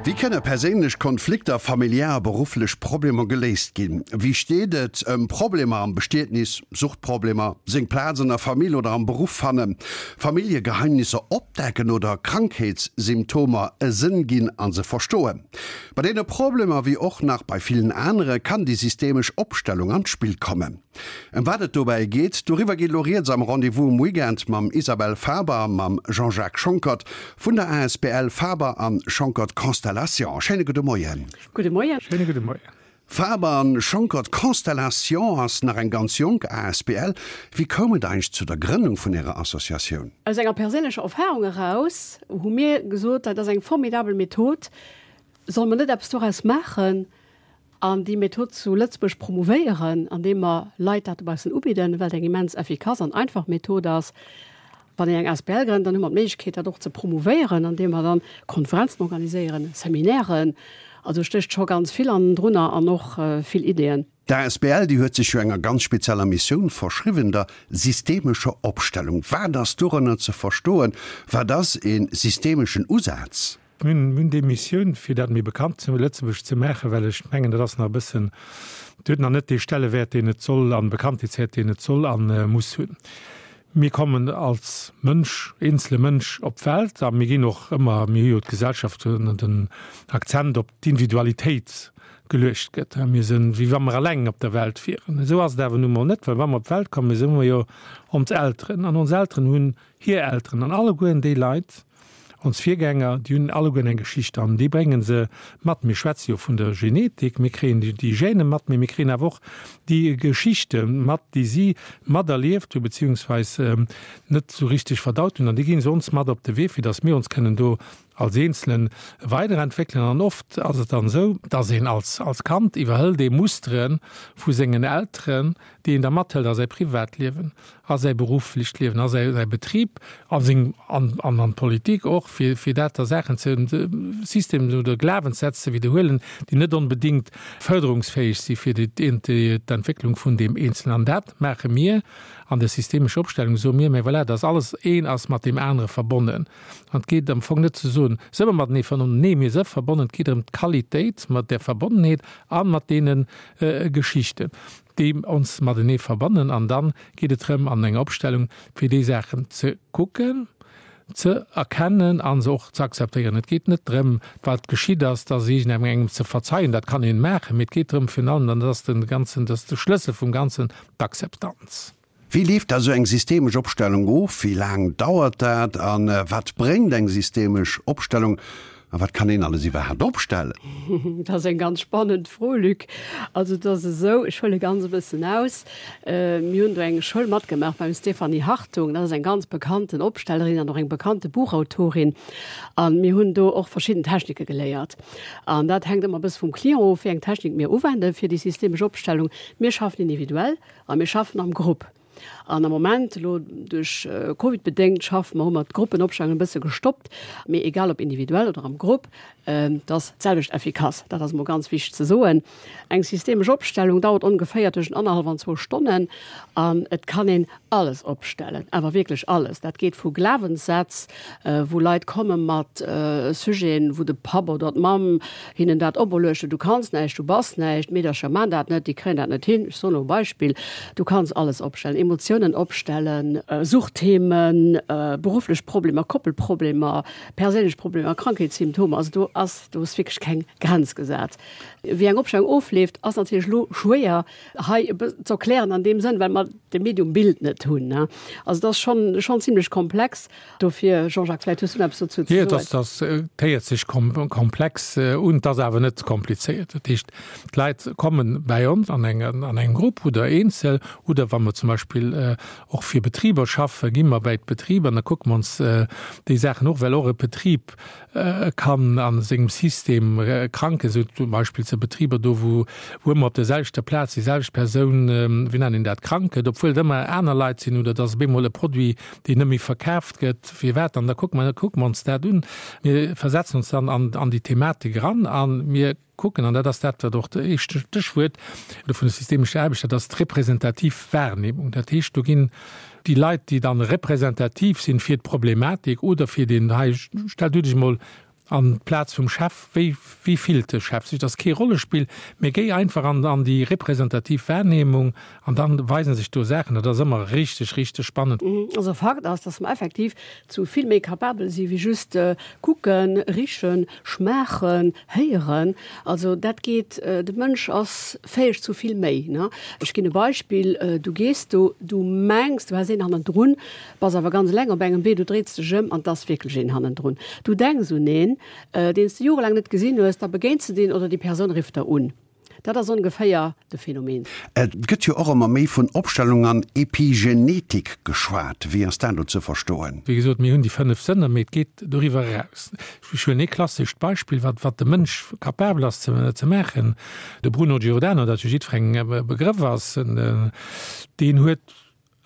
Wéi kënne perséinlech Konflikter, familiär a berufflech Problemer geléist ginn? Wéi steet et ëm Problemer am Bestietnis, Suchtproblemer, seng Plaz an der Famill oder am Beruff fannen, Familljegeheimnisser opdecken oder Krankheetssymptomer e Sënn ginn a se verstoen? Bei deene Problemer, wéi och nach bei villen anere, kann déi systemesch Opstellung an d'Spill kommen. Ëm wat et dobäi geet, doriwwer geet elo rieds am Rendez-vous um Weekend mam Isabelle Faber a mam Jean-Jacques Schonckert vun der asbl Faber an Schonckert Constellation. Schéine gudde Moien. Gudde Moien. Schéine gudde Moien. Faber an Schonckert Constellation ass nach eng ganz jonk asbl. Wéi koum et eigentlech zu der Grënnung vun Ärer Associatioun? Aus enger perséinlecher Erfarung eraus hu mir gesot, dat ass eng formidabel Method, solle mer net eppes doraus maachen? An déi Method zu Lëtzebuerg promouvéieren, andeem mer Leit dat dobaussen ubidden, well et eng immens effikass an einfach Method ass. Wann een eng asbl grënnt, dann hu mer d'Méiglechkeet, dat och ze promouvéieren, andeem mer dann Konferenzen organiséieren, Seminairen. Also stécht scho ganz vill hannendrunner an och vill Ideeën. D'asbl, déi huet sech jo enger ganz spezieller Missioun verschriwwen, der systemescher Opstellung. Wat ass dorënner ze verstoen? Wat ass e systemeschen Usaz? Mir hunn déi Missioun, fir dat méi bekannt zu Lëtzebuerg ze maachen, well ech mengen, dat ass nach e bëssen, et huet nach net dee Stellewäert, deen et soll an Bekanntheetswäert, deen et soll a muss hunn. Mir kommen als Mënsch, eenzele Mënsch op d'Welt a mir ginn och ëmmer, mir hu jo d'Gesellschaft, wou den Akzent op d'Individualitéit geluecht gëtt. Mir sinn, wéi wa mer eleng op der Welt wieren. Esou ass et awer nu mol net, well wa mer op d'Welt kommen, esou hu mer jo ons Elteren an ons Elteren hunn hir Elteren an allegueren déi Leit, Ons Virgänger, déi hunn allegueren eng Geschicht an déi brénge se mat. Mir schwätze jo vun der Genetik, mir kréien déi Gène mat, mee mir kréien awer och déi Geschichte mat, déi si materlieft hu beziehungsweis net esou richteg verdaut hunn. An déi gi se ons mat op de Wee, fir datt mir ons kënnen do als Eenzele weiderentwéckelen. An oft ass et dann esou, datt een als Kand iwwerhëlt ee Mustere vu sengen Elteren, déi een da mathëlt a säi Privatliewen, a säi berufflecht Liewen, a säi Betrib, a seng, an an d'Politik och, fir fir dat da Saachen ze, Systemen oder Glawenssätz ze widderhuelen, déi net onbedéngt fërderungsfäeg si fir déi d'Entwécklung vun deem Eenzelen. An dat maache mir an der systemescher Opstellung, soe mir, mä voilà, dass alles een ass mat deem anere verbonnen. An et geet am Fong net ze soen, se ëmmer matenee verbonnen, nee, mir si verbonnen, et geet ëm d'Qualitéit mat där Verbonnenheet a mat deene Geschichten. déi ons matenee verbannen an dann geet et drëm an enger Opstellung fir déi Saachen ze kucken, ze erkennen a se och ze akzeptéieren. Et geet net drëm, wat geschitt ass, dass iergendengem engem ze verzeien, dat kann een maachen, mee et geet drëm virun allem, an dat ass de ganzen, dat ass de Schlëssel vum Ganzen, d'Akzeptanz. Wéi leeft da sou eng systemesch Opstellung of? Wéi laang dauert dat? A wat bréngt eng systemesch Opstellung? A wat kann een alles iwwerhaapt opstellen? Dat ass eng ganz spannend Fro, Luc. Also et ass esou, ech huele ganz e bëssen aus, mir hunn do eng Schoul matgemaach beim Stéphanie Hartung, dat ass eng ganz bekannten Opstellerin an och eng bekannte Buchautorin. A mir hunn do och verschidden Technike geléiert. An dat hänkt ëmmer e bësse vum Client of, wéi eng Technik mir uwenden fir déi systemesch Opstellung. Mir schaffen individuell. A mir schaffen am Grupp. An am Moment, elo duerch Covid bedéngt, schaffe mer, hu mer d'Gruppenopstellung e bësse gestoppt. Mee egal ob individuell oder am Grupp, et ass d'selwecht effikass. Dat ass emol ganz wichteg ze soen. Eng systemesch Opstellung dauert ongeféier tëschent annerhallef an zwou Stonnen. An et kann een alles opstellen, awer wierklech alles. Dat geet vu Glawenssätz, wou Leit komme mat Sujeten, wou de Papp oder d'Mamm hinnen dat operluecht huet, du kanns näischt, du bass näischt, d'Meedercher man dat net, déi kréien dat net hin, ech soen elo e Beispill, du kanns alles opstellen, Emotiounen opstellen, Suchtthemen, berufflech Problemer, Koppelproblemer, perséinlech Problemer, Krankheetssymptomer, also do ass, do ass wierklech keng Grenz gesat. Wéi eng Opstellung ofleeft, ass natierlech elo schwéier hei e bëssen ze erklären an deem Sënn, well mer de Medium Bild net hunn. Also et ass schonn, schonn zimlech komplex. Dofir, Jean-Jacques, vläicht hues du nach eppes dozou ze soen. Jo, dat héiert sech komplex un, et ass awer net komplizéiert. Dat heescht, d'Leit komme bäi ons an engem Grupp oder eenzel, oder wa mer zum Beispill och fir Betriber schaffen, gi mer bäi d'Betriber an da kucke mer ons déi Saachen och, well och e Betrib kann a sengem System kranken, esou zum Beispill zu Betriber do, wou wou ëmmer op der selwechter Plaz déi selwecht Persoun, wéi nennt een dat, krank gëtt, obwuel et ëmmer aner Leit sinn, oder dass op eemol e Produit, deen net méi verkaaft gëtt, firwat? An da kucke mer, kucke mer ons dat un. Mir versetzen ons dann an an déi Thematik eran a mir kucken, an dat ass dat, wat och de éischte Stéchwuert vun der systemescher Aarbecht, dat ass d'representativ Wahrnehmung. Dat heescht, do ginn déi Leit, déi dann representativ sinn fir d'Problematik oder fir deen hei, stell du dech emol. An d'Plaz vum Chef, wéi, wéi fillt de Chef sech? Dat ass kee Rollespill, mee géi einfach an, an déi representativ Wahrnehmung an dann weisen sech do Saachen. Dat ass ëmmer richteg, richteg spannend. Also Fakt ass, dass mer effektiv zu vill méi kapabel si wéi just kucken, richen, schmaachen, héieren. Also dat geet, de Mënsch ass fäeg zu vill méi, ne? Ech ginn e Beispill, Du gees do, du mengs, du häss een hannendrun, Bass awer ganz eleng op engem Wee, du dréits dech ëm an 't ass wierklech een hannendrun. Du denks un een, deen s de jorelaang net gesinn hues, da begéins de deen oder déi Persoun rifft der un. Dat ass ongeféier de Phänomen. Et gëtt jo och ëmmer méi vun Opstellung an Epigenetik geschwat. Wéi ass dat elo ze verstoen? Wéi gesot, mir hunn déi 5 Sënner, mee et geet doriwwer eraus. Ech huelen ee klassescht Beispill, wat wat de Mënsch capabel ass ze ze maachen. De Bruno Giordano, dat jo jiddwerengem e Begrëff ass, deen huet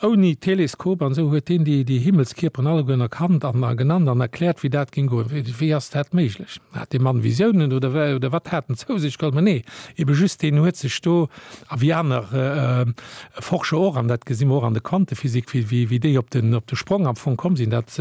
Ouni Teleskop an esou huet deen déi déi Himmelskierperen allegueren erkannt an a genannt an erkläert, wéi dat géing goen. Wéi wéi ass dat méiglech? Hat dee Mann Visiounen oder wéi oder wat hat en zou sech geholl? Mä nee, ebe just deen huet sech do, a wéi aner Forscher och, an dat gesi mer och an der Quantephysik, wéi wéi wéi déi op den op de Sprong am Fong komm sinn, dat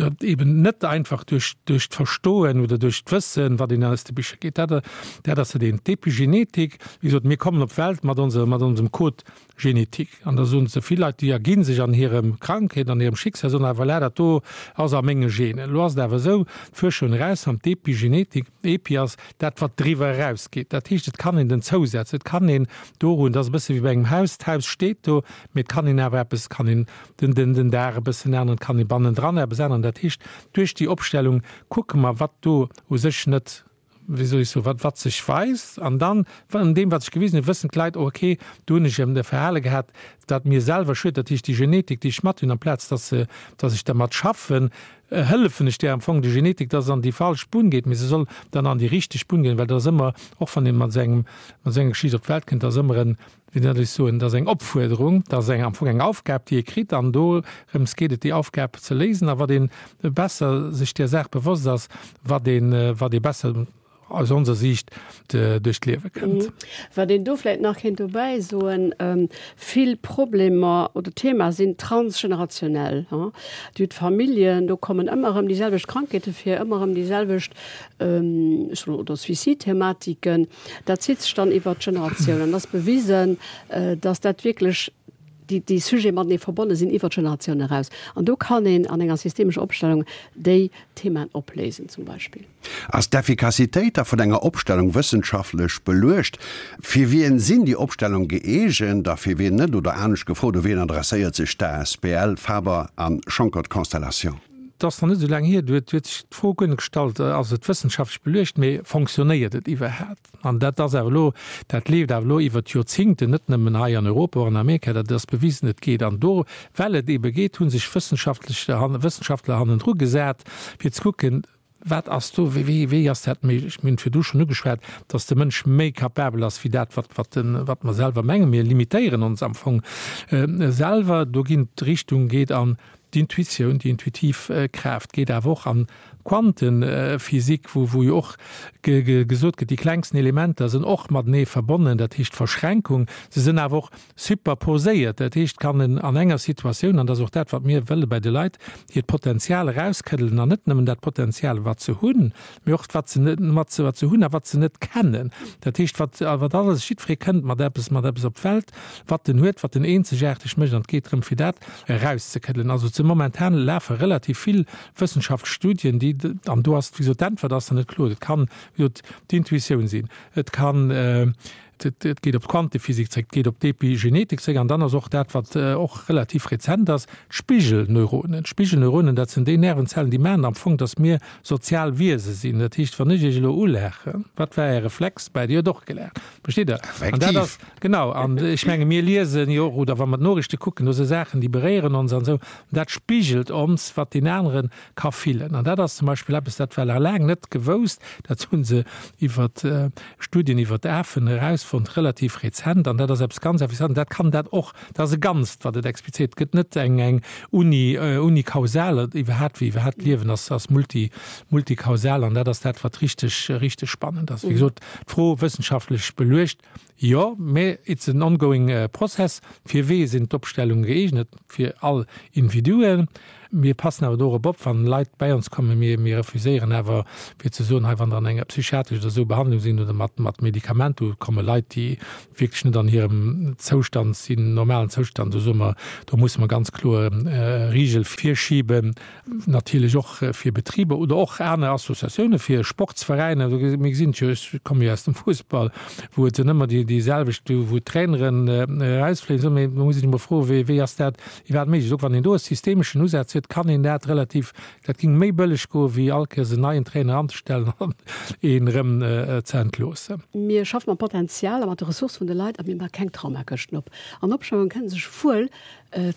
dat eben net einfach duerch duerch d'Verstoen oder duerch d'Wëssen, wat een aus de Bicher geet. Dat dat ass dat eent. D'Epigenetik, wéi gesot, mir kommen op d'Welt mat onser mat onsem Code Genetik. An da soen se vill Leit, déi erginn sech an hirem Krankheet, an hirem Schicksal, soen awer, voilà, dat do ass a menge Genen. Elo ass et awer esou, d'Fuerscher hunn erausfonnt, d'Epigenetik, Epi ass dat, wat driwwer erausgeet. Dat heescht, et kann een den zousetzen, et kann een dorun, dat ass e bësse wéi bei engem Haus, d'Haus steet do, mee et kann een awer eppes, et kann een den, den, den Daach e bëssen änneren, et kann ee bannendran eppes änneren. Dat heescht, duerch déi Opstellung kucke mer, wat do u sech net wéi soll ech soen, wat, wat sech weist. An dann, an deem, wat sech gewisen huet, wëssen d'Leit, oh okay, do hunn ech e Verhale gehat, dat mir selwer schued. Dat heescht, déi Genetik, déi ech mat hunn, amplaz dass se, dass ech dermat schaffen, hëllefen ech där am Fong, der Genetik, dass se an déi falsch Bunn geet. Mee se soll dann an déi richteg Bunn goen, well dat ass ëmmer, och wann ee mat esou engem, mat esou enger Geschicht op d'Welt kënnt, dat ass ëmmer en, wéi soll ech soen, dat ass eng Opfuerderung, dat ass eng, am Fong eng Aufgab, déi ee kritt, an dorëms geet et, déi Aufgab ze léisen. A wat ee besser sech där Saach bewosst ass, wat ee, wat ee besser aus onser Siicht duerch d'Liewe kënnt. Wat een do vläicht nach kéint dobäi soen, Vill Problemer oder Themae sinn transgenerationell. Dir hutt Familljen, do kommen ëmmer erëm déi selwecht Krankheete vir, ëmmer erëm déi selwecht, ech soen, oder Suicide-Thematiken. Dat zitt sech dann iwwert d'Generatioun an et ass bewisen, dass dat wierklech déi, déi Sujete matenee verbonne sinn iwwert d'Generatioun eraus. An do kann een an enger systemescher Opstellung déi Themaen opléisen zum Beispill. Ass d'Effikassitéit da vun enger Opstellung wëssenschaftlech beluecht? Fir wien sinn déi Opstellung gëeegent a fir wien net? Oder anescht gefrot, u wien adresséiert sech d'ASBL Faber a Schonckert Constellation? Et ass nach net esou laang hier, do huet sech d'Fro guer net gestallt, ass et wëssenschaftlech beluecht, mee fonctionnéiert et iwwerhaapt? An dat ass awer elo, dat leeft awer elo iwwert Joerzingten, net nëmmen hei an Europa, och an Amerika, dat ass bewisen, et geet. An do, well et eebe geet, hu sech wëssenschaftlech, Wëssenschaftler hannendru gesat, fir ze kucken, Wat ass do, wéi, wéi ass dat méiglech? Mir hunn virdu schonn ugeschwat, dass de Mënsch méi capabel ass wéi dat, wat, wat de, wat mer selwer mengen. Mir limitéieren ons am Fong selwer. Do ginn d'Richtung geet an d'Intuitioun, déi intuitiv Kraaft geet awer och an d'Quantenphysik, wou, wou jo och ge, ge, gesot gëtt, déi klengsten Elementer sinn och matenee verbonnen, dat heescht Verschränkung. Se sinn awer och Superposéiert, dat heescht, kann en an enger Situatioun, an dat ass och dat, wat mir wëlle bei de Leit, hiert Potenzial erauskëddelen an net nëmmen dat Potenzial, wat se hunn, mee och wat se net, wat se, wat se hunn a wat se net kennen. Dat heescht, wat, wat alles, jiddweree kënnt mat eppes, mat eppes op d'Welt, wat en huet, wat en eenzegaarteg mécht an et geet drëm, fir dat erauszekëddelen. Also ze momentan lafe relativ vill wëssenschaftlech Studien, déi, an do ass, wéi gesot, d'Äntwert ass nach net kloer. Et kann, wéi gesot, d'Intuitioun sinn, et kann, Et geet op d'Quantephysik zréck, et geet op d'Epigenetik zréck an dann ass och dat, wat och relativ rezent ass, d'Spigelneuronen. D'Spigelneuronen, dat sinn déi Nervenzellen, déi maachen am Fong, datt mir sozial Wiese sinn. Dat heescht, wann ech Iech elo ulaachen, wat war Är Reflex? Bäi Dir huet och gelaacht. Versteet Der? An dat ass, genau, an ech menge mir liesen jo och, oder wa mer d'Noriichte kucken, do si Saachen, déi beréieren ons an esou. An dat spigelt ons, wat deen anere ka fillen. An dat ass zum Beispill eppes, dat war laang net gewousst, dat hu se iwwer Studien iwwer d'Afen erausfonnt, relativ rezent, an dat ass eppes ganz Effizientes. Dat kann dat och, dat ass e Ganzt, wat et explizéiert. Et gëtt net eng eng uni unikausal, iwwerhaapt wéi iwwerhaapt d'Liewen ass ass multi multikausal, an dat ass dat, wat richteg richteg spannend ass. Wéi gesot, d'Fro wëssenschaftlech beluecht, jo, mä it's an ongoing process. Fir wee sinn d'Opstellunge gëeegnet? Fir all Individuen. Mir passen awer dorop op, wann Leit bäi ons kommen, mir, mir refuséieren awer fir ze soen, hei wann der an enger psychiatresch oder esou Behandlung sinn oder mat, mat Medikament, do komme Leit, déi wierklech net an hirem Zoustand sinn, normalen Zoustand, do soe mer, do musse mer ganz kloer Rigel virschiben. Natierlech och fir Betriber oder och aner Associatioune fir Sportsveräiner. Mir gesinn et jo, ech komme jo aus dem Fussball, wou et sinn ëmmer déi déi selwecht, wou d'Traineren erausfléien. Esou, mee do muss een sech emol froen, wéi wéi ass dat iwwerhaapt méiglech? Och wann een do e systemeschen Usaz huet, kann een dat relativ, dat géing méi bëlleg goen, wéi all Kéiers en neien Trainer anzestellen an een erëm ze entloossen. Mir schaffe mam Potenzial a mat de Ressourcë vun de Leit a mir maache keng Traumakëschten op. An Opschauungen kënne sech wuel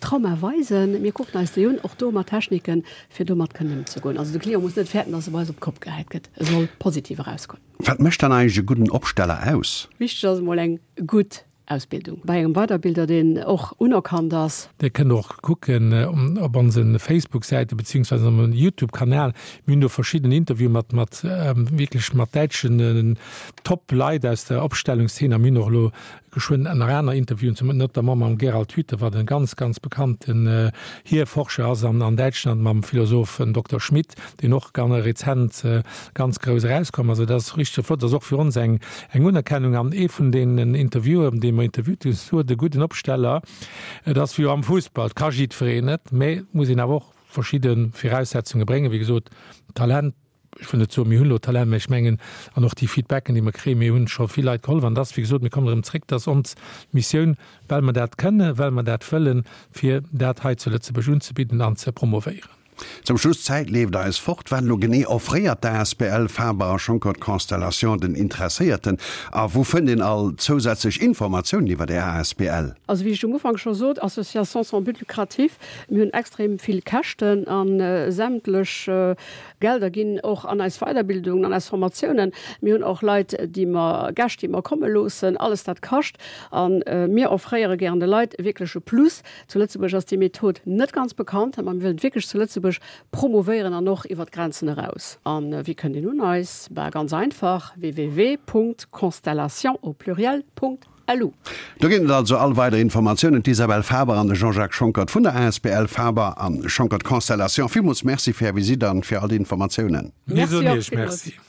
Trauma weisen. Mir kucken eis déi un, och do mat Techniken, fir domat kënnen ëmzegoen. Also de Client muss net fäerten, dass e bei eis op d'Kopp gehäit gëtt. E soll positiv erausgoen. Wat mécht dann eigentlech e gudden Opsteller aus? Wichteg ass emol eng gutt Ausbildung bei engem Weiderbilder, deen och unerkannt ass. Dir kënnt och kucken op onse Facebook-Säite beziehungsweise op onsem YouTube-Kanal. Mir hunn do verschidden Interviewen mat mat wierklech mat däitschen Top-Leit aus der Opstellungszeen a mir hunn och elo Geschwënn nach aner Interviewen, zum notamment mam Gerald Hüther, wat e ganz, ganz bekannten Hierforscher ass an an Däitschland, mam Philosoph Dokter Schmidt, deen och ganz rezent ganz grouss erauskomm ass. Also dat ass richteg flott, dat ass och fir ons eng eng Unerkennung. An ee vun deenen Interviewen, dee mer interviewt hunn, huet e gudden Opsteller, et ass wéi am Fussball, et ka jiddwereen et, mä et muss een awer och verschidde Viraussetzunge bréngen, wéi gesot, Talent, ech wëll net soen, mir hunn elo Talent, mä ech mengen, an och déi Feedbacken, déi mer kréien, mir hunn scho vill Leit gehollef. An et ass, wéi gesot, mir kommen erëm zréck, dat ass ons Missioun, well mer dat kënnen, well mer dat wëllen, fir dat hei zu Lëtzebuerg unzebidden an ze promovéieren. Zum Schluss, d'Zäit leeft eis fort. Wat elo genee offréiert d'ASBL Faber a Schonckert Constellation den Interesséierten a wou fënnt een all zousätzlech Informatiounen iwwer Är asbl? Also wéi ech um Ufank scho sot, Association sans but lucratif, mir hunn extrem vill Käschten a sämtlech Gelder ginn och an eis Weiderbildungen, an eis Formatiounen. Mir hunn och Leit, déi mer, Gäscht, déi mer komme loossen. Alles dat kascht. A mir offréiere gären de Leit wierklech e Plus. Zu Lëtzebuerg ass déi Method net ganz bekannt, ma mir wëllen et wierklech zu Lëtzebuerg promouvéieren an och iwwer d'Grenzen eraus. A wéi kënnt een un eis? Bah, ganz einfach, www.constellation au pluriel. Lu. Do ginn et also all weider Informatiounen. D'Isabelle Faber an de Jean-Jacques Schonckert vun der asbl Faber a Schonckert Constellation, villmools Merci fir Är Visitt an fir all déi Informatiounen. Mir soen Iech Merci.